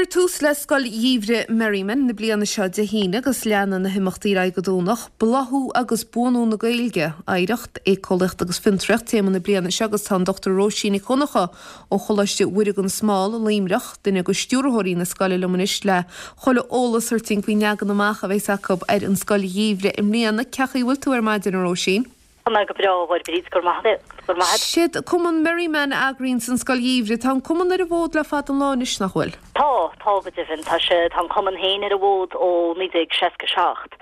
Cuirfear tús le Scoil Gheimhridh Merriman na bliana seo Dé hAoine agus leanfaidh na himeachtaí ar aghaidh go Domhnach. Bláthú agus buanú na Gaeilge, Oidhreacht, Éiceolaíocht agus Fiontraíocht téama na bliana seo agus tá an Dr Róisín Nic Dhonncha ó Choláiste Mhuire gan Smál i Luimneach, duine de stiúrthóirí na scoile liom anois le chuile eolas a thabhairt dúinn faoin leagan amach a bheas acu ar an Scoil Gheimhridh i mbliana. Cén chaoi a bhfuil tú ar maidin, a Róisín? Tá mé go breá, a Mháire Bríd, go raibh maith agat, go raibh maith agat. Siad Cumann Merriman a eagraíonns an Scoil Gheimhridh. Tá an Cumann ar an bhfód le fada an lá anois, nach bhfuil? Tá, tá go deimhin. Tá sé, tá an Cumann féin ar an bhfód ó 1967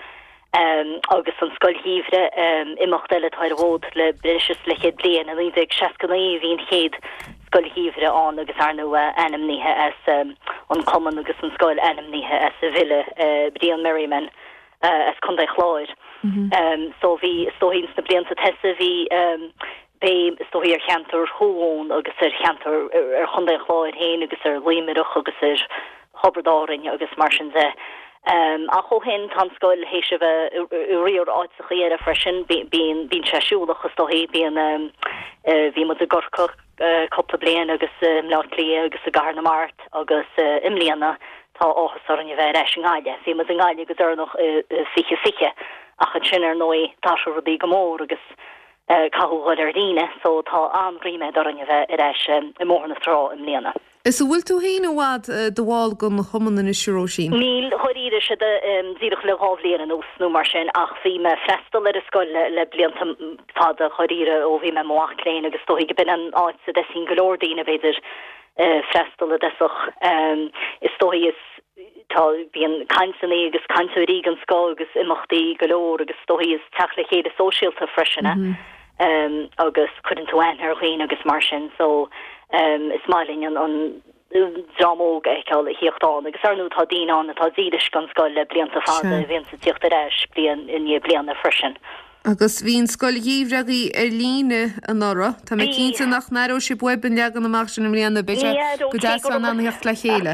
agus an Scoil Gheimhridh, imeacht eile atá ar an bhfód le breis is leathchéad bliain. I 1969 a bhí an chéad Scoil Gheimhridh ann agus ar ndóigh ainmnithe as an Cumann agus an scoil ainmnithe as an bhfile Brian Merriman. as Contae Chláir. So bhí, is dóichí ins na blianta tosaigh bhí béim is dóichí ar cheantar Thuamhumhan agus ar cheantar, ar Chontae an Chláir féin agus ar Luimneach agus ar Thiobraid Árainn agus mar sin de. Ach ó shin tá an scoil théis a bheith i riar áiteachaí eile freisin, bíonn, bíonn sé siúlach is dóichí, bíonn, bhí muid i gCorcaigh, cúpla bliain agus i mBleá Cliath agus i gCathair na Mart agus i mbliana tá áthas orainn a bheith ar ais i nGaillimh. Bhí muid i nGaillimh go deireanach i 2020 ach ansin ar ndóigh d'athraigh rudaí go mór agus caitheadh dhul ar líne so tá an-ríméad orainn a bheith ar ais i mBóthar na Trá i mbliana. Is an bhfuil tú féin i bhfad i do bhall den chumann anois, a Róisín? Níl, dháiríre, sé díreach le 2 bhliain anuas nó mar sin ach bhí mé ag freastal ar an scoil le blianta fada, dháiríre, ó bhí mé i mo mhac léinn agus is dóichí go b'in an áit a dtosaíonn go leor daoine, b'fhéidir, freastal i dtosach. Is dóichí is tá, bíonn cainteanna agus cainteoirí den scoth agus imeachtaí go leor agus is dóichí is teacht le chéile sóisialta freisin é. agus cuireann tú aithne ar dhaoine agus mar sin so is maith linn an an dream óg a fheiceáil ag tíocht ann agus ar ndóigh tá daoine ann atá dílis don scoil le blianta fada a bhíonns ag tíocht ar ais bliain i ndiaidh bliana freisin. Agus bhí an scoil gheimhridh agaibh ar líne anuraidh. Tá mé cinnte nach n-aireoidh sibh uaibh an leagan amach sin i mbliana. Beidh sé go deas a bheith in ann a theacht le chéile.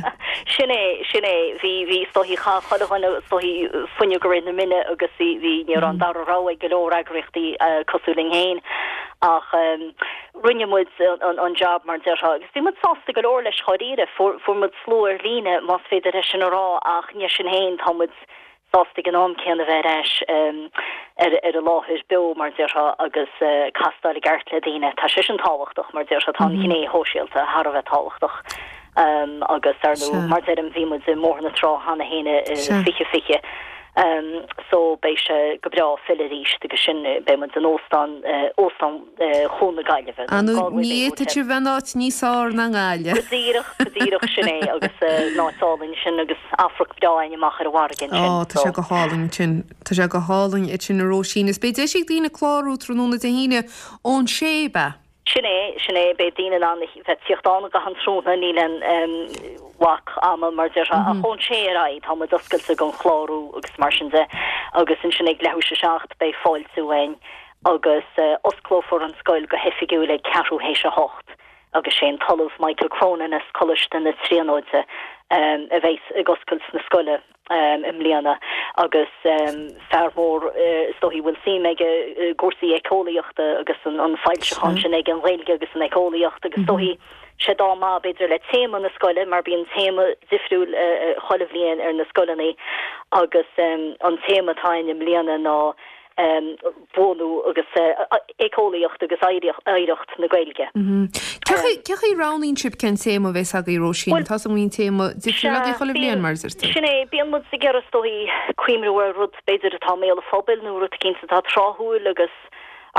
Sin é, sin é. Bhí, bhí, is dóichí, chaith chuile dhuine, is dóichí, fuinneog i rith na mine agus bhí, bhí, ní raibh an dara rogha ag go leor eagraíochtaí cosúil linn féin ach rinne muid an job mar déarfá agus bhí muid sásta go leor leis dháiríre. Fuair, fuair muid slua ar líne más féidir é sin a rá ach ní sin féin tá muid sásta ag an am céanna bheith ar ais ar ar an láthair beo mar déarfá agus castáil i gceart le daoine. Tá sé sin tábhachtach mar déarfá, tá an ghné shóisialta thar a bheith tábhachtach agus ar ndóigh mar deirim bhí muid i mBóthar na Trá cheana féin i 2020 so beidh sé go breá filleadh arís agus sin beidh muid in óstán óstán Chuan na Gaillimhe. Ar ndóigh ní fhéadfadh sé bheith in áit níos fearr ná i nGaillimh. Go díreach, go díreach, sin é agus an áit álainn sin agus amharc breá againn amach ar an bhfarraige ansin. Ó, tá sé go hálainn ansin, tá sé go hálainn ansin a Róisín. Is beidh deis ag daoine clárú tráthnóna Dé hAoine ón sé, ab ea? Sin é, sin é, beidh daoine in ann a bheith ag tíocht ann i gcaitheamh an tráthnóna, níl aon bhac ama mar déarfá, ach ón sé ar aghaidh tá muid oscailte don chlárú agus mar sin de agus ansin ag leathuair théis a 7 beidh fáiltiú againn agus osclófar an scoil go hoifigiúil ag ceathrú théis a hocht agus sé an tOllamh Michael Cronin as Coláiste na Tríonóide a bheas ag oscailt na scoile i mbliana agus fear mór is dóichí a bhfuil suim aige i gcúrsaí éiceolaíochta agus an foilseachán sin aige an Ghaeilge agus an Éiceolaíocht agus is dóichí sé dá maith b'fhéidir le téama na scoile mar bíonn téama difriúil chuile bhliain ar na scoileanna agus an téama atá againn i mbliana ná buanú agus éiceolaíocht agus oidhreacht na Gaeilge. Cén chaoi a roghnaíonn sibh cén téama a bheas agaibh, Róisín? Tá a fhios agam go mbíonn téama difriúil agaibh chuile bhliain, mar a deir tú. Sin é, bíonn muid ag iarraidh is dóichí cuimhniú ar rud b'fhéidir atá i mbéal an phobail nó rud eicínt atá tráthúil agus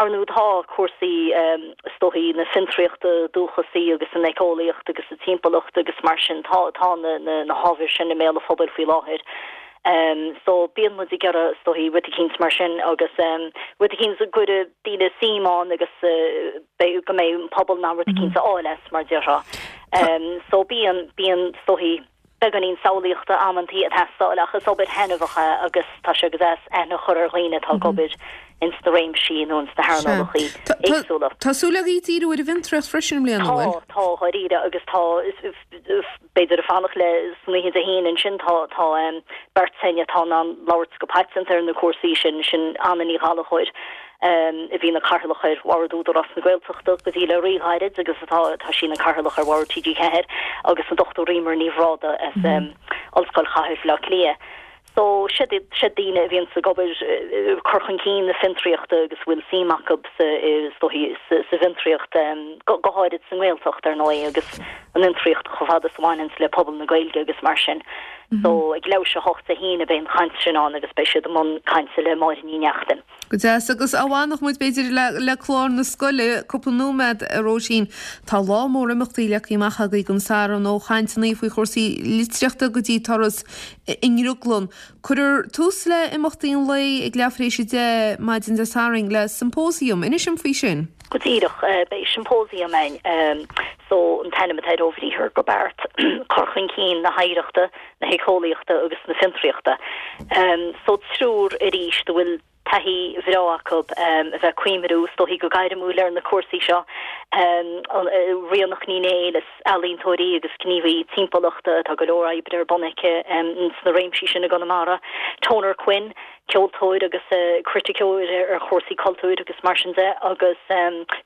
ar ndóigh tá cúrsaí is dóichí na fiontraíochta dúchasaí agus an éiceolaíocht agus an timpeallacht agus mar sin tá tá na na hábhair sin i mbéal an phobail faoi láthair. So bíonn muid ag iarraidh is dóichí rud eicínt mar sin agus rud eicínt a gcuirfidh daoine suim ann agus beidh go mbeidh an pobal in ann rud eicínt a fháil as mar déarfá. So bíonn, bíonn is dóichí beagáinín samhlaíochta amantaí ag teastáil ach is obair thaitneamhach é agus tá sé go deas aithne a chur ar dhaoine atá ag obair ins na réimsí nó ins na hearnálacha éagsúla. Tá súil agaibh díriú ar an bhfiontraíocht freisin i mbliana, an bhfuil? Tá, tá, dháiríre agus tá, b'fhéidir ag fanacht le san oíche Dé hAoine ansin tá tá beirt againn atá in ann labhairt go paiteanta ar na cúrsaí sin, sin Anna Ní Ghallchóir. A bhí ina Cathaoirleach ar Bhord Údarás na Gaeltachta go dtí le rí-ghairid agus atá tá sí ina Cathaoirleach ar Bhord TG4 agus an Dr Eimear Ní Bhrádaigh as Ollscoil Chathair Bhaile Átha Cliath. So siad siad daoine a bhíonns ag obair cur chun cinn na fiontraíochta agus a bhfuil suim acu sa is dóichí sa sa bhfiontraíocht go go háirid sa nGaeltacht ar ndóigh agus an fhiontraíocht chomh fada is a bhaineanns le pobal na Gaeilge agus mar sin. So ag leathuair théis 8 Dé hAoine beidh an chaint sin ann agus beidh siad i mbun cainte le Máire Ní Neachtain. Go deas. Agus dá bhfanfadh muid, b'fhéidir, le clár na scoile cúpla nóiméad, a Róisín. Tá lá mór imeachtaí leagtha amach agaibh don Satharn, ó chainteanna faoi chúrsaí litríochta go dtí turas i nDrioglann. Cuirfear tús le imeachtaí an lae ag leathuair tar éis 10 maidin Dé Sathairn le symposium. Inis dom faoi sin. Go díreach. Beidh symposium ann. So, an t-ainm atá air ó bhriathar go beart, cur chun cinn na hoidhreachta, na héiceolaíochta agus na fiontraíochta. So triúr arís a bhfuil taithí bhreá acu a bheith ag cuimriú, is dóichí go gairmiúil ar na cúrsaí seo. Ríonach Ní Néill, is ealaíontóir í agus gníomhaí timpeallachta, tá go leor oibre ar bun aici sna réimsí sin i gConamara. Toner Quinn, ceoltóir agus criticeoir ar chúrsaí cultúir agus mar sin de, agus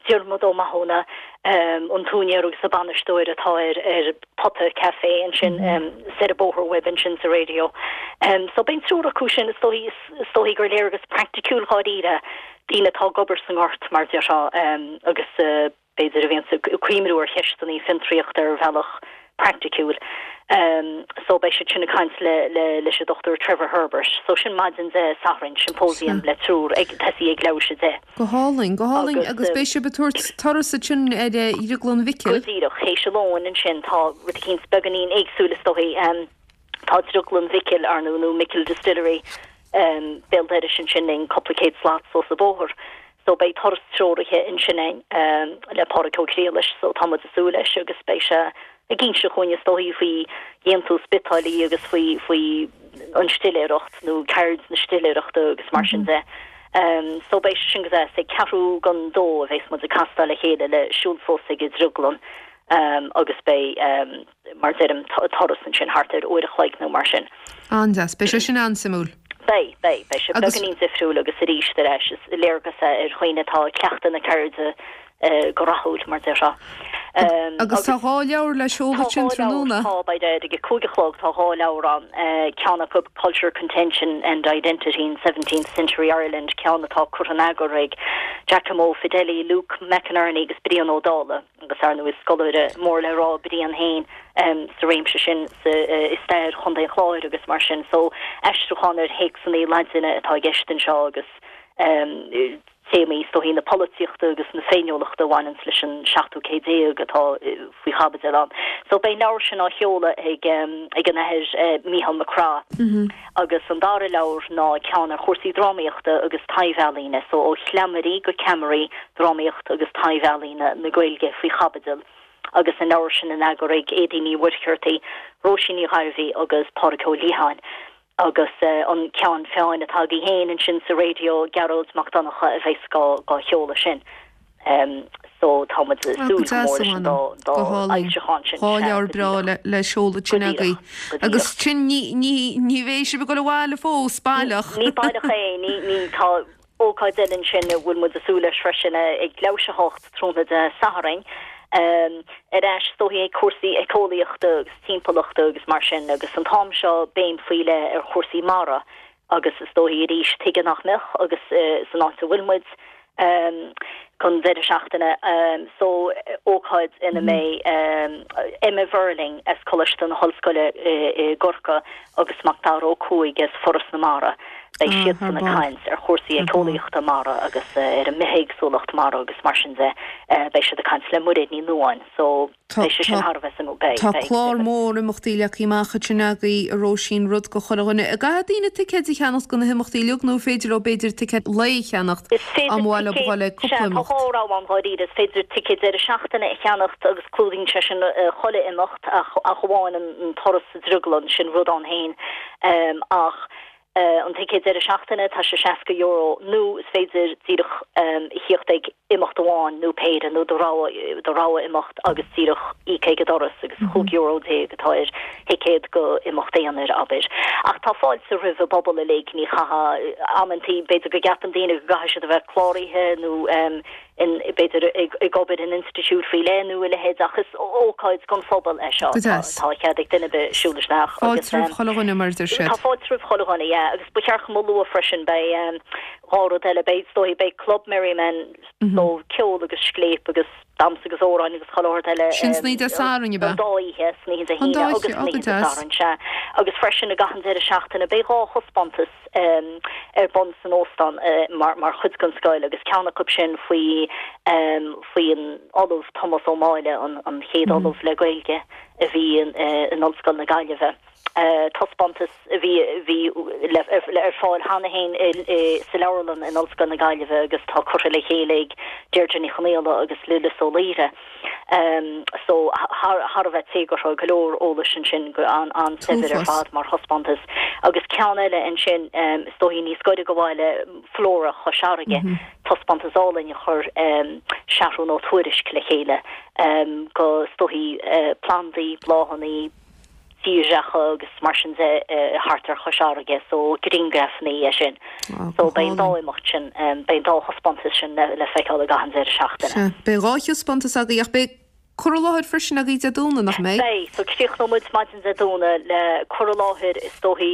Diarmuid Ó Mathúna, an t-úinéir agus an bainisteoir atá ar ar Pota Café ansin soir an bóthar uaibh ansin sa Radio. So beidh an triúr acu sin, is dóichí, is dóichí gur léargas praiticiúil dháiríre daoine atá ag obair sa ngort mar déarfá agus b'fhéidir a bhíonns ag cuimriú ar cheisteanna fiontraíochta ar bhealach praiticiúil. So beidh siad sin ag caint le le leis an Dr Trevor Herbert. So sin maidin Dé Sathairn, symposium le triúr ag tosaí ag leathuair théis 10. Go hálainn, go hálainn. Agus beidh sibh ag tabhairt turas ansin ar Dhrioglann Mhicil. Go díreach, théis a lóin ansin tá rud eicínt beagáinín éagsúil is dóichí. Tá Drioglann Mhicil, ar ndóigh, nó Micil Distillery, béal dorais ansin linn, cúpla céad slat suas an bóthar. So beidh turas treoraithe ansin againn le Pádraig Ó Criallais, so tá muid ag súil leis agus beidh sé ag inse chugainn is dóichí faoi dhéantús biotáillí agus faoi faoi an stiléireacht nó ceird na stiléireachta agus mar sin de. So beidh sé sin go deas. Ag ceathrú don dó a bheas muid ag castáil le chéile le siúl suas ag an drioglann agus beidh mar deirim, turas ansin thart ar uair a chloig nó mar sin. An-deas. Beidh sé sin an-suimiúil. Beidh, beidh. Beidh sé beagáinín difriúil agus arís ar ais, is léargas é ar dhaoine atá ag cleachtadh na ceirde go rathúil, mar déarfá. Agus tá dhá leabhar le seoladh ansin tráthnóna. Tá, beidh ag a 5 a chlog, tá dhá leabhar ann, ceann acu Culture, Contention and Identity in Seventeenth Century Ireland, ceann atá curtha in eagar ag Giacomo Fedeli, Luke McInerney agus Brian Ó Dálaigh. agus ar ndóigh is scoláire mór le rá Brian féin sa réimse sin sa i stair Chontae an Chláir agus mar sin. So aistriúchán ar théacsanna Laidine atá i gceist anseo agus téamaí is dóichí na polaitíochta agus na féiniúlachta a bhaineanns leis an seachtú céad déag atá faoi chaibidil ann. So beidh an leabhar sin á sheoladh ag ag an Athair Mícheál Mac Craith. Agus an dara leabhar ná ceann ar chúrsaí drámaíochta agus taibh-ealaíne, so ó chleamairí go ceamaraí, drámaíocht agus taibh-ealaíona na Gaeilge faoi chaibidil, agus an leabhar sin in eagar ag Éadaoin Ní Mhuircheartaigh, Róisín Ní Ghairbhí agus Pádraig Ó Liatháin. Agus an ceann feadhain atá agaibh féin ansin sa raidió, Gearóid Mac Donncha a bheas dhá sheoladh sin. So tá muid ag súil go mór leis an dá fhoilseachán sin. Dhá leabhar breá le seoladh ansin agaibh. Agus sin ní bheidh sibh ag dul abhaile fós, baileach. Ní baileach é, ní tá ócáid eile ansin a bhfuil muid ag súil leis freisin ag leathuair théis 8 tráthnóna Dé Sathairn. Ar ais is dóichí ag cúrsaí éiceolaíochta agus timpeallachta agus mar sin agus an t-am seo béim faoi leith ar chúrsaí mara Agus is dóichí arís, tuige nach mbeadh, agus san áit a bhfuil muid don deireadh seachtaine so, ócáid ina mbeidh Emma Verling as Coláiste na hOllscoile i gCorcaigh agus Macdara Ó Cuaig as Foras na Mara, beidh siadsan ag caint ar chúrsaí éiceolaíochta mara agus ar an mbithéagsúlacht mara agus mar sin de. Beidh siad ag caint le Muiréad Ní Nuadháin. So. Tá clár mór imeachtaí leagtha amach ansin agaibh, a Róisín, rud do chuile dhuine. An gcaithfidh daoine ticéid a cheannacht do na himeachtaí uilig nó an féidir leo b'fhéidir ticéad lae a cheannacht dá mba mhaith leo a dhul ag cúpla imeacht? Tá dhá rogha ann dháiríre. Is féidir ticéad deireadh seachtaine a cheannacht agus clúdaíonn sé sin chuile imeacht ach amháin an turas sa drioglann, sin rud ann féin. Ach. An ticéad deireadh seachtaine, tá sé €60 nó is féidir díreach a thíocht ag imeacht amháin nó péire nó do rogha, do rogha imeacht agus díreach íoc ag an doras agus €15 atá ar thicéad go imeacht aonair, abair. Ach tá fáilte roimh an bpobal uilig, ní chaithfidh, amantaí b'fhéidir go gceapann daoine go gcaithfidh siad a bheith cláraithe nó in, b'fhéidir, ag obair in institiúid faoi leith nó a leithéid ach is ócáid don phobal é seo. Go deas. Tá cead ag duine ar bith siúl isteach agus. Fáilte roimh chuile dhuine mar a deir siad. Tá fáilte roimh chuile dhuine, yeah. Agus ba cheart dom a lua freisin, beidh dhá rud eile, beidh, is dóigh, beidh Club Merriman, so ceol agus scléip agus damhsa agus amhráin agus chuile shórt eile. Sin san oíche Dé Sathairn, ab ea? An dá oíche, san oíche Dé An hAoine dá agus oíche, san oh go oíche Dé deas. Sathairn, sea. Agus freisin i gcaitheamh an deireadh seachtaine beidh dhá thaispeántas ar bun san óstán mar chuid den scoil agus ceann acu sin faoi faoi an Ollamh Tomás Ó Máille, an chéad Ollamh le Gaeilge a bhí in Ollscoil na Gaillimhe. Taispeántas a bhí bhí ar fáil cheana féin sa leabharlann in Ollscoil na Gaillimhe agus tá curtha le chéile ag Deirdre Ní Chonaola agus Lillis Ó Laoire. So thar thar a bheith téagartha, go leor eolais ansin, go an-saibhir ar fad mar thaispeántas. Agus ceann eile ansin, is dóigh níos gaire do bhaile, Flora Chois Fharraige, taispeántas álainn a chuir Seathrún Ó Tuairisg le chéile go, is dóigh, plandaí, bláthanna, tírdhreacha agus mar sin de thart ar Chois Fharraige so grianghrafanna é sin. So beidh an dá imeacht sin, beidh an dá thaispeántas sin le feiceáil i gcaitheamh an deireadh seachtaine. Sea, beidh dhá thaispeántas agaibh ach beidh cur i láthair freisin agaibh Dé Domhnaigh, nach mbeidh? Beidh, so críochnóidh muid maidin Dé Domhnaigh le cur i láthair is dóichí,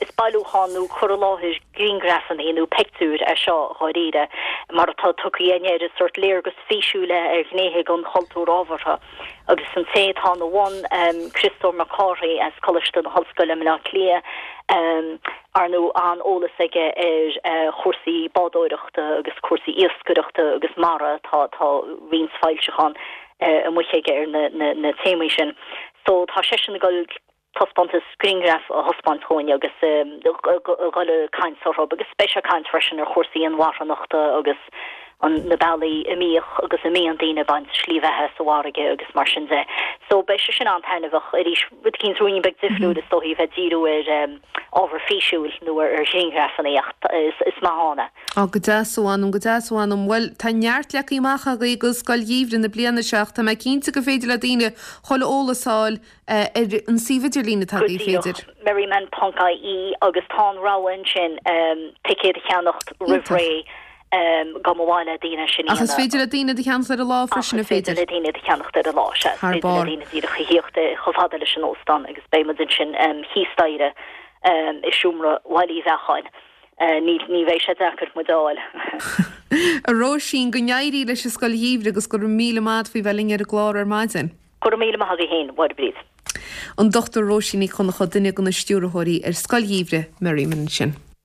is bailiúchán nó cur i láthair grianghrafanna nó pictiúir é seo dháiríre mar atá tugtha againn air, is sórt léargas físiúil é ar ghnéithe den chultúr ábhartha. Agus an té atá ina bhun, Criostóir Mac Cárthaigh as Coláiste na hOllscoile i mBleá Cliath, ar ndóigh an-eolas aige ar chúrsaí bádóireachta agus cúrsaí iascaireachta agus mara, tá tá roinnt foilseachán amuigh aige ar na téamaí sin. So tá seisean ag dul taispeántas grianghraf a thaispeáint dhúinn agus a dhul ag caint orthu agus beidh sé ag caint freisin ar chúrsaí inmharthanachta agus an na bealaí a mbíodh agus a mbíonn daoine ag baint slí bheatha sa bhfarraige agus mar sin de. So beidh sé sin an-taitneamhach arís, rud eicínt ruainnín beag difriúil is dóichí bheith ag díriú ar ábhar físiúil nó ar ghrianghrafanna ach is maith ann é. Á, go deas a mh'anam, go deas a mh'anam. Bhuel, tá neart leagtha amach agaibh go Scoil Gheimhridh na bliana seo ach tá mé cinnte gur féidir le daoine chuile eolas a fháil ar an suíomh idirlín atá Go agaibh, díreach, féidir. merriman ponc ie agus tá an rogha ansin ticéad a cheannacht roimh Iontach. ré dá mba mhaith le daoine sin a Ach is dhéanamh. féidir le daoine iad a cheannacht ar an lá Ach freisin, is an féidir féidir? le daoine iad a cheannacht ar an lá, sea. Is Thar féidir le barr. daoine díreach a thíocht chomh fada leis an óstán agus beidh muid ansin thíos staighre i seomra Bhaile Uí Bheacháin. Ní ní bheidh sé deacair muid a fháil. A Róisín, go n-éirí leis an Scoil Gheimhridh agus go raibh míle maith agat faoi bheith linn ar an gclár ar maidin. Go raibh míle maith agaibh féin, a Mháire Bríd. An Dr Róisín Nic Dhonncha, duine de na stiúrthóirí ar Scoil Gheimhridh Merriman ansin.